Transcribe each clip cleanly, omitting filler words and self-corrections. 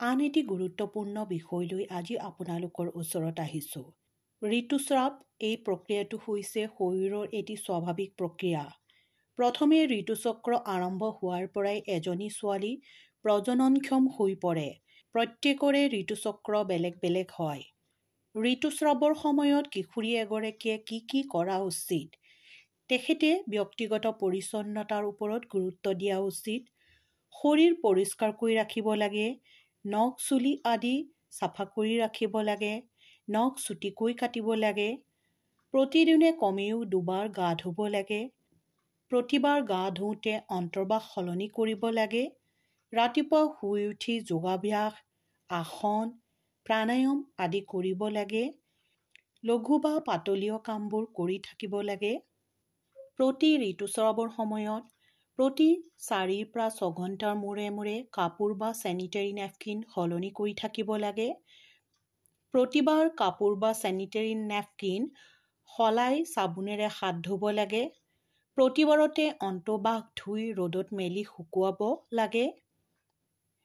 আন এটি গুৰুত্বপূৰ্ণ বিষয় লৈ আজি আপোনালোকৰ ওচৰত আহিছোঁ। ঋতুস্ৰাৱ এই প্ৰক্ৰিয়াটো হৈছে শৰীৰৰ এটি স্বাভাৱিক প্ৰক্ৰিয়া। প্ৰথমে ঋতুচক্ৰ আৰম্ভ হোৱাৰ পৰাই এজনী ছোৱালী প্ৰজননক্ষম হৈ পৰে। প্ৰত্যেকৰে ঋতুচক্ৰ বেলেগ বেলেগ হয়। ঋতুস্ৰাৱৰ সময়ত কিশোৰী এগৰাকীয়ে কি কি কৰা উচিত? তেখেতে ব্যক্তিগত পৰিচ্ছন্নতাৰ ওপৰত গুৰুত্ব দিয়া উচিত। শৰীৰ পৰিষ্কাৰ কৰি ৰাখিব লাগে, নখ চুলি আদি চাফা কৰি ৰাখিব লাগে, নখ চুটিকৈ কাটিব লাগে, প্ৰতিদিনে কমেও দুবাৰ গা ধুব লাগে, প্ৰতিবাৰ গা ধুওঁতে অন্তৰ্বাস সলনি কৰিব লাগে, ৰাতিপুৱা শুই উঠি যোগাভ্যাস, আসন, প্ৰাণায়াম আদি কৰিব লাগে, লঘু বা পাতলীয় কামবোৰ কৰি থাকিব লাগে। প্ৰতি ঋতুস্ৰাৱৰ সময়ত প্ৰতি 4ৰ পৰা 6 ঘণ্টাৰ মূৰে মূৰে কাপোৰ বা চেনিটেৰী নেপকিন সলনি কৰি থাকিব লাগে। প্ৰতিবাৰ কাপোৰ বা চেনিটেৰী নেপকিন সলাই চাবোনেৰে হাত ধুব লাগে। প্ৰতিবাৰতে অন্তৰ্বাস ধুই ৰ'দত মেলি শুকুৱাব লাগে।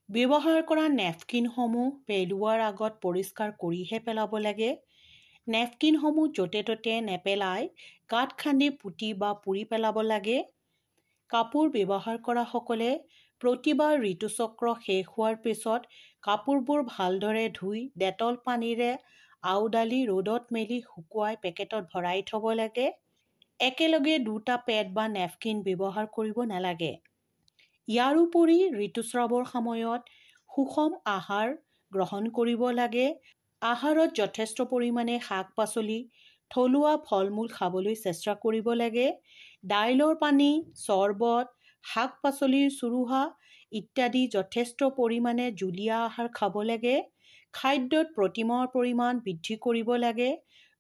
ব্যৱহাৰ কৰা নেপকিনসমূহ পেলোৱাৰ আগত পৰিষ্কাৰ কৰিহে পেলাব লাগে। নেপকিনসমূহ য'তে ত'তে নেপেলাই গাঁত খান্দি পুতি বা পুৰি পেলাব লাগে। কাপোৰ ব্যৱহাৰ কৰাসকলে প্ৰতিবাৰ ঋতুচক্ৰ শেষ হোৱাৰ পিছত কাপোৰবোৰ ভালদৰে ধুই ডেটল পানীৰে আওডালি ৰ'দত মেলি শুকুৱাই পেকেটত ভৰাই থ'ব লাগে। একেলগে দুটা পেড বা নেপকিন ব্যৱহাৰ কৰিব নালাগে। ইয়াৰোপৰি ঋতুস্ৰাৱৰ সময়ত সুষম আহাৰ গ্ৰহণ কৰিব লাগে। আহাৰত যথেষ্ট পৰিমাণে শাক পাচলি, থলুৱা ফল মূল খাবলৈ চেষ্টা কৰিব লাগে। দাইলৰ পানী, চৰবত, শাক পাচলিৰ চুৰুহা ইত্যাদি যথেষ্ট পৰিমাণে জুলীয়া আহাৰ খাব লাগে। খাদ্যত প্ৰটিনৰ পৰিমাণ বৃদ্ধি কৰিব লাগে।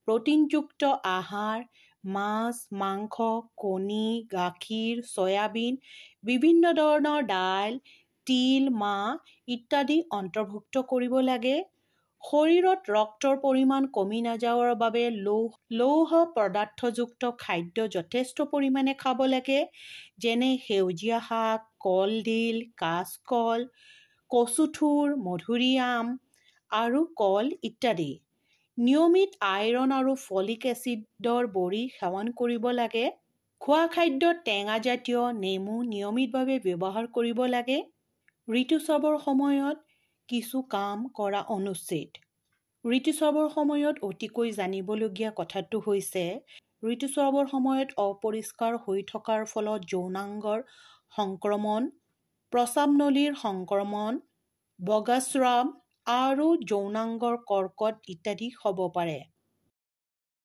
প্ৰটিনযুক্ত আহাৰ, মাছ, মাংস, কণী, গাখীৰ, চয়াবিন, বিভিন্ন ধৰণৰ দাইল, তিল, মাহ ইত্যাদি অন্তৰ্ভুক্ত কৰিব লাগে। শৰীৰত ৰক্তৰ পৰিমাণ কমি নাযাবৰ বাবে লৌহ পদাৰ্থযুক্ত খাদ্য যথেষ্ট পৰিমাণে খাব লাগে, যেনে সেউজীয়া শাক, কলডিল, কাচকল, কচুথোৰ, মধুৰিআম আৰু কল ইত্যাদি। নিয়মিত আইৰণ আৰু ফলিক এচিডৰ বড়ি সেৱন কৰিব লাগে। খোৱা খাদ্যত টেঙাজাতীয় নেমু নিয়মিতভাৱে ব্যৱহাৰ কৰিব লাগে। ঋতুস্ৰাৱৰ সময়ত কিছু কাম কৰা অনুচিত। ঋতুস্ৰাৱৰ সময়ত অতিকৈ জানিবলগীয়া কথাটো হৈছে, ঋতুস্ৰাৱৰ সময়ত অপৰিষ্কাৰ হৈ থকাৰ ফলত যৌনাংগৰ সংক্ৰমণ, প্ৰস্ৰাৱ নলীৰ সংক্ৰমণ, বগাস্ৰাৱ আৰু যৌনাংগৰ কৰ্কট ইত্যাদি হ'ব পাৰে।